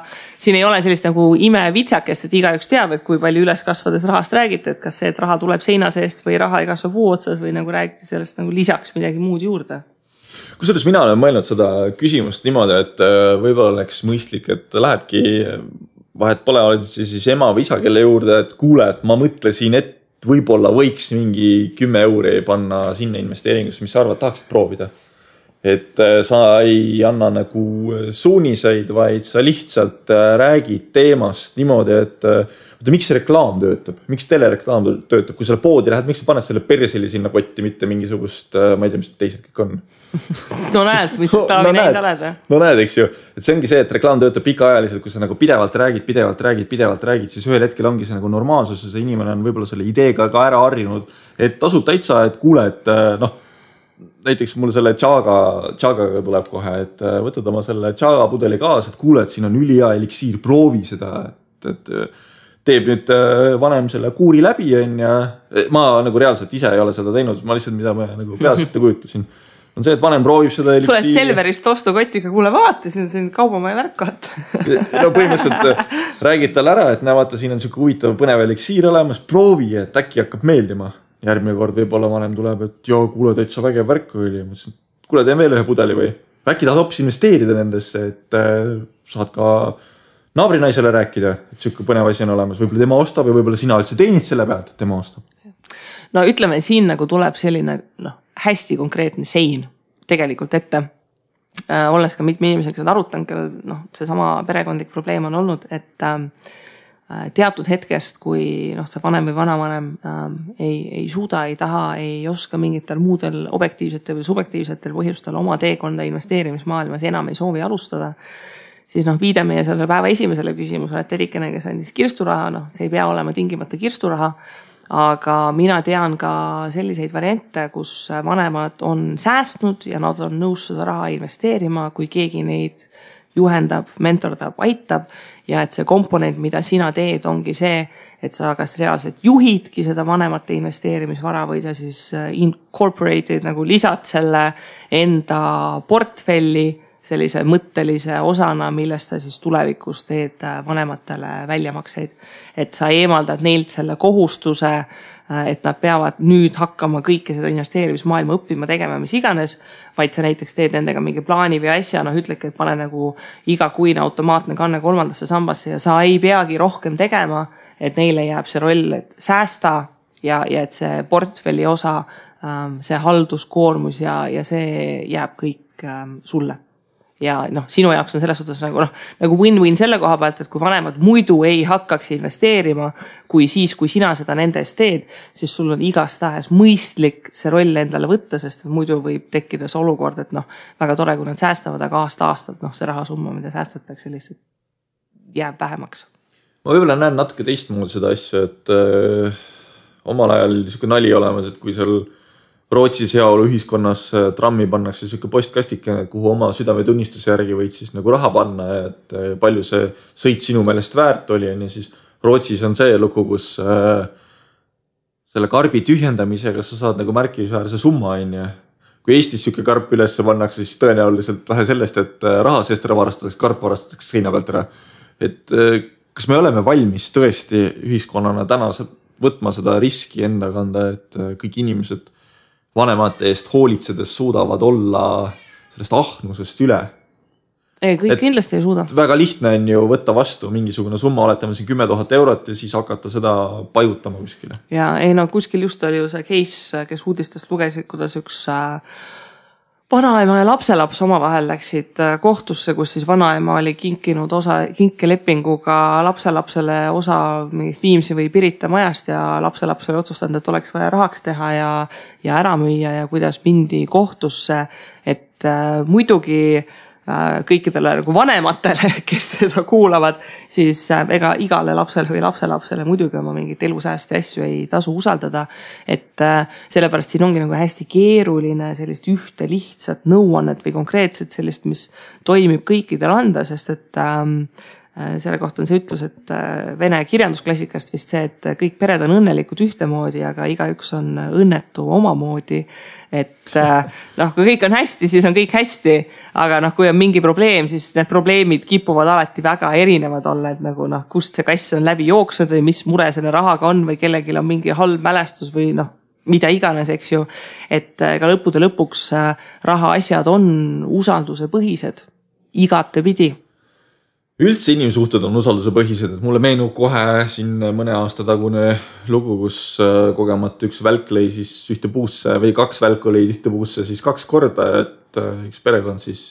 A: siin ei ole sellist nagu imevitsakest, et igaüks teab, et kui palju üles kasvades rahast räägite, et kas see, et raha tuleb seina seest või raha ei kasva puu otsas või nagu räägite sellest nagu lisaks midagi muud juurde.
B: Kusjuures mina olen mõelnud seda küsimust niimoodi, et võib-olla oleks mõistlik, et lähedki vahet pole, oled siis ema või isa, kelle juurde, et kuule, et ma mõtlesin, et võib-olla võiks mingi 10 euri panna sinna investeeringusse, mis sa arvad, tahaksid proovida. Et sa ei anna nagu suuniseid, vaid sa lihtsalt räägid teemast niimoodi, et miks see reklaam töötab, miks telereklaam töötab, kui selle poodi lähed, miks sa paned selle perseli sinna kotti, mitte mingisugust, ma ei tea, mis teised kõik on.
A: Näed, mis taavi neid oled.
B: Näed, eks ju, et see ongi see, et reklaam töötab pikaajaliselt, kui sa nagu pidevalt räägid, siis ühel hetkel ongi see nagu normaalsus ja see inimene on võib-olla selle ideega ka ära harjunud, et tasub täitsa, et kuule, et näiteks mul selle tšaagaga tuleb kohe, et võtad oma selle tšaaga pudeli kaasa, et kuule, et siin on ülihea eliksiir, proovi seda, et teeb nüüd vanem selle kuuri läbi ja ma nagu reaalselt ise ei ole seda teinud, ma lihtsalt mida ma nagu peas ette kujutasin. On see, et vanem proovib seda eliksiiri.
A: Tuled Selverist ostukotiga, kuule vaatasin, see on kaubamaja värkat.
B: Põhimõtteliselt räägid tal ära, et vaata, siin on siuke huvitav põnev eliksiir olemas, proovi, et äkki hakkab meeldima. Järgmine kord võib-olla vanem tuleb, et joo, kuule, täitsa vägev värk oli. Kuule, teen veel ühe pudeli või? Äkki tahad hoopis investeerida nendesse, et saad ka naabrinaisele rääkida, et siuke põnev asi on olemas. Võib-olla tema ostab ja võib-olla sina üldse teenid selle pealt, et tema ostab.
A: Ütleme, siin nagu tuleb selline hästi konkreetne sein tegelikult ette. Olles ka mitme inimesega seda arutanud, kellel see sama perekondlik probleem on olnud, et teatud hetkest, kui see vanem või vanavanem ei suuda, ei taha, ei oska mingitel muudel objektiivsetel või subjektiivsetel põhjustel oma teekonda investeerimismaailmas enam ei soovi alustada, siis viide meie selle päeva esimesele küsimusele, et Edikene, kes andis kirsturaha, see ei pea olema tingimata kirsturaha, aga mina tean ka selliseid variante, kus vanemad on säästnud ja nad on nõus seda raha investeerima, kui keegi neid juhendab, mentordab, aitab ja et see komponent, mida sina teed, ongi see, et sa kas reaalselt juhidki seda vanemate investeerimisvara või sa siis incorporated nagu lisad selle enda portfelli sellise mõttelise osana, millest sa siis tulevikus teed vanematele väljamakseid. Et sa eemaldad neilt selle kohustuse, et nad peavad nüüd hakkama kõike seda investeerimismaailma õppima, tegema, mis iganes, vaid sa näiteks teed nendega mingi plaani või asja, ütledki, et pane nagu igakuine automaatne kanne 3. sambasse ja sa ei peagi rohkem tegema, et neile jääb see roll, et säästa ja et see portfelli osa, see halduskoormus ja see jääb kõik sulle. Ja sinu jaoks on selles suhtes nagu win-win selle koha pealt, et kui vanemad muidu ei hakkaks investeerima, kui siis, kui sina seda nende eest teed, siis sul on igastahes mõistlik see roll endale võtta, sest muidu võib tekkida see olukord, et väga tore, kui nad säästavad, aga aasta-aastalt see rahasumma, mida säästatakse, lihtsalt jääb vähemaks.
B: Ma võib-olla näen natuke teistmoodi seda asja, et omal ajal niisugune nali olemas, et kui seal Rootsis heaolu ühiskonnas trammi pannakse niisugune postkastikene, kuhu oma südametunnistuse järgi võid siis nagu raha panna, et palju see sõit sinu meelest väärt oli, ja siis Rootsis on see lugu, kus selle karbi tühjendamisega sa saad nagu märkimisväärse summa, Kui Eestis niisugune karp üles pannakse, siis tõenäoliselt vähe sellest, et raha seest ära varastatakse, karp varastatakse seina pealt ära. Et kas me oleme valmis tõesti ühiskonnana täna võtma seda riski enda kanda, et kõik inimesed vanemate eest hoolitsedes suudavad olla sellest ahnusest üle.
A: Ei, kõik kindlasti ei suuda.
B: Väga lihtne on ju võtta vastu mingisugune summa, oletame siin 10 000 eurot ja siis hakata seda pajutama kuskile.
A: Ja kuskil just oli ju see case, kes uudistest lugesid, kuidas üks vanaema ja lapselaps omavahel läksid kohtusse, kus siis vanaema oli kinkinud kinkelepinguga lapselapsele osa mingist Viimsi või Pirita majast ja lapselapsele otsustanud, et oleks vaja rahaks teha ja ära müüa ja kuidas mindi kohtusse, et muidugi kõikidele nagu vanematele, kes seda kuulavad, siis ega igale lapsele või lapselapsele muidugi oma mingit elusäästi asju ei tasu usaldada, et sellepärast siin ongi nagu hästi keeruline sellist ühte lihtsat nõuannet või konkreetset sellist, mis toimib kõikidele anda, sest et selle kohta on see ütlus, et vene kirjandusklassikast vist see, et kõik pered on õnnelikud ühtemoodi, aga igaüks on õnnetu omamoodi, et kui kõik on hästi, siis on kõik hästi, aga kui on mingi probleem, siis need probleemid kipuvad alati väga erinevad olla, et nagu kust see kass on läbi jooksnud või mis mure selle rahaga on või kellelgi on mingi halb mälestus või mida iganes, eks ju, et ka lõppude lõpuks raha asjad on usalduse põhised igatepidi.
B: Üldse inimsuhted on usalduse põhised, et mulle meenub kohe siin mõne aasta tagune lugu, kus kogemata üks välk lõi siis ühte puusse või 2 välku lõid ühte puusse siis 2 korda, et üks perekond siis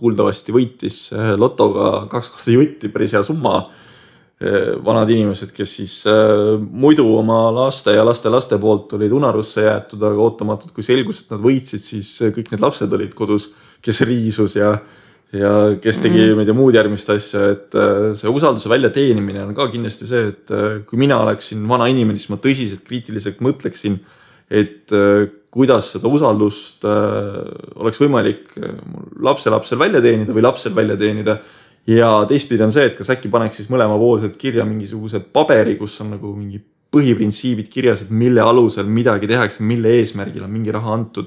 B: kuuldavasti võitis lotoga 2 korda jutti, päris hea summa. Vanad inimesed, kes siis muidu oma laste ja laste poolt olid unarusse jäetud, aga ootamatult, kui selgus, et nad võitsid, siis kõik need lapsed olid kodus, kes riisus ja kes tegi muud järgmist asja, et see usalduse väljateenimine on ka kindlasti see, et kui mina oleksin vana inimene, siis ma tõsiselt kriitiliselt mõtleksin, et kuidas seda usaldust oleks võimalik lapselapsel välja teenida või lapsel välja teenida. Ja teistpidi on see, et kas äkki paneks siis mõlemapoolselt kirja mingisugused paberi, kus on nagu mingi põhiprintsiibid kirjas, et mille alusel midagi tehakse, mille eesmärgil on mingi raha antud.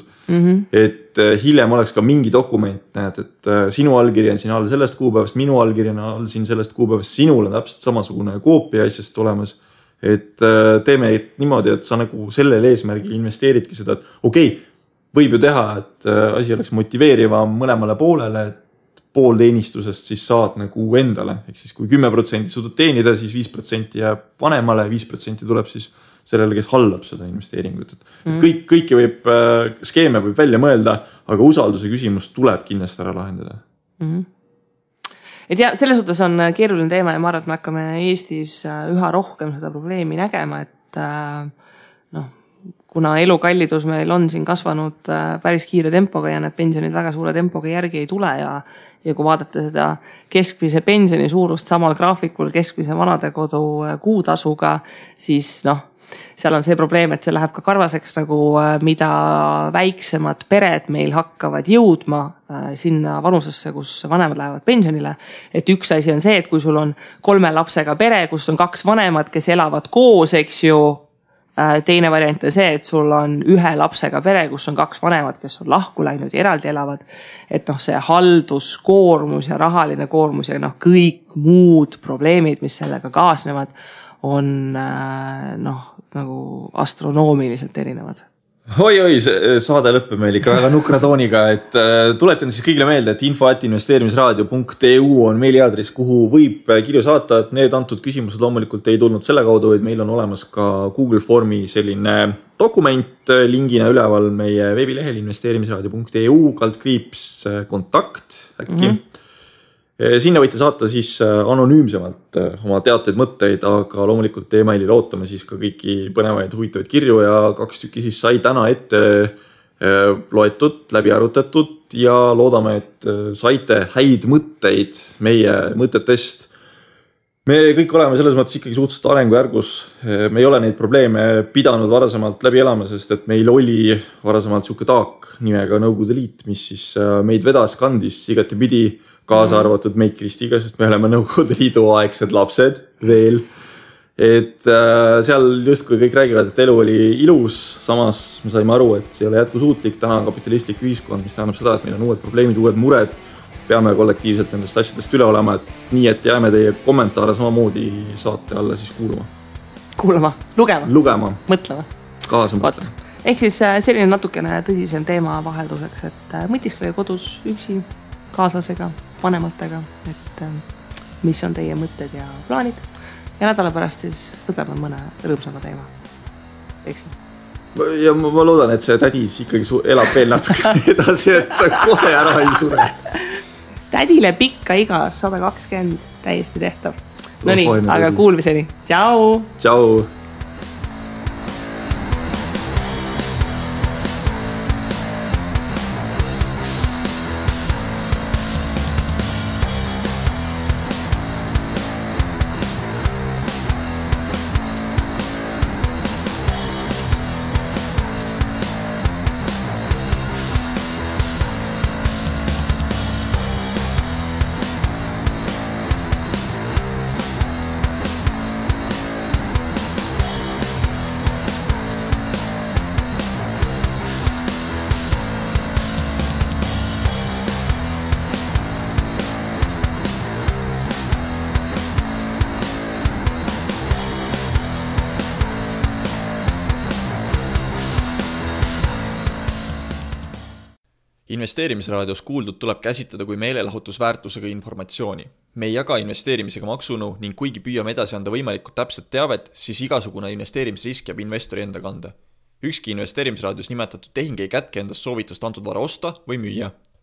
B: Et hiljem oleks ka mingi dokument, näed, et sinu allkiri on siin all sellest kuupäevast, minu allkiri on all siin sellest kuupäevast, sinul on täpselt samasugune koopia asjast olemas. Et teeme niimoodi, et sa nagu sellel eesmärgil investeeridki seda, et okei, võib ju teha, et asi oleks motiveerivam mõlemale poolele, et pool teenistusest siis saad nagu endale. Ehk siis kui 10% suudad teenida, siis 5% jääb vanemale, 5% tuleb siis sellele, kes hallab seda investeeringut. Kõiki võib, skeeme võib välja mõelda, aga usalduse küsimus tuleb kindlasti ära lahendada.
A: et ja selles suhtes on keeruline teema ja ma arvan, et me hakkame Eestis üha rohkem seda probleemi nägema, et kuna elukallidus meil on siin kasvanud päris kiire tempoga ja need pensionid väga suure tempoga järgi ei tule ja kui vaadata seda keskmise pensioni suurust samal graafikul keskmise vanadekodu kuutasuga, siis seal on see probleem, et see läheb ka karvaseks nagu mida väiksemad pered meil hakkavad jõudma sinna vanusesse, kus vanemad lähevad pensionile. Et üks asi on see, et kui sul on 3 lapsega pere, kus on 2 vanemad, kes elavad koos, eks ju, teine variant on see, et sul on 1 lapsega pere, kus on 2 vanemad, kes on lahku läinud ja eraldi elavad. Et see halduskoormus ja rahaline koormus ja kõik muud probleemid, mis sellega kaasnevad, on nagu astronoomiliselt erinevad.
B: Oi, saade lõppe meil ikka väga nukra tooniga, et tuletan siis kõigile meelde, et info@investeerimisraadio.eu on meiliaadress, kuhu võib kirju saata, et need antud küsimused loomulikult ei tulnud selle kaudu, et meil on olemas ka Google Formi selline dokument lingina üleval meie veebilehel investeerimisraadio.eu /kontakt äkki. Sinna võite saata siis anonüümsemalt oma teateid mõtteid, aga loomulikult emailil ootame siis ka kõiki põnevaid huvitavaid kirju ja 2 tükki siis sai täna ette loetud, läbi arutatud ja loodame, et saite häid mõtteid meie mõtetest. Me kõik oleme selles mõttes ikkagi suhteliselt arengujärgus. Me ei ole neid probleeme pidanud varasemalt läbi elama, sest et meil oli varasemalt siuke taak nimega Nõukogude Liit, mis siis meid vedas, kandis igati pidi kaasa arvatud meid Kristiga, sest me oleme Nõukogude Liidu aegsed lapsed veel. Et seal justkui kõik räägivad, et elu oli ilus, samas me saime aru, et see ei ole jätkusuutlik, täna on kapitalistlik ühiskond, mis tähendab seda, et meil on uued probleemid, uued mured, peame kollektiivselt nendest asjadest üle olema, et nii, et jääme teie kommentaare samamoodi saate alla siis
A: kuulama,
B: lugema,
A: mõtlema,
B: kaasa mõtlema.
A: Ehk siis selline natukene tõsisem teema vahelduseks, et mõtiskle kodus üksi, kaaslasega, vanematega, et mis on teie mõtted ja plaanid ja nädala pärast siis võtame mõne rõõmsama teema. Eksin.
B: Ja ma loodan, et see tädis ikkagi elab veel natuke edasi, et kohe ära ei sure.
A: Tädile pikka iga 120 täiesti tehtav. No nii, aga kuulmiseni. Tšau!
B: Tšau!
C: Investeerimisraadios kuuldud tuleb käsitleda kui meelelahutusväärtusega informatsiooni. Me ei jaga investeerimisega maksunu ning kuigi püüame edasi anda võimalikult täpset teavet, siis igasugune investeerimisrisk jääb investori enda kanda. Ükski investeerimisraadios nimetatud tehing ei kätke endast soovitust antud vara osta või müüa.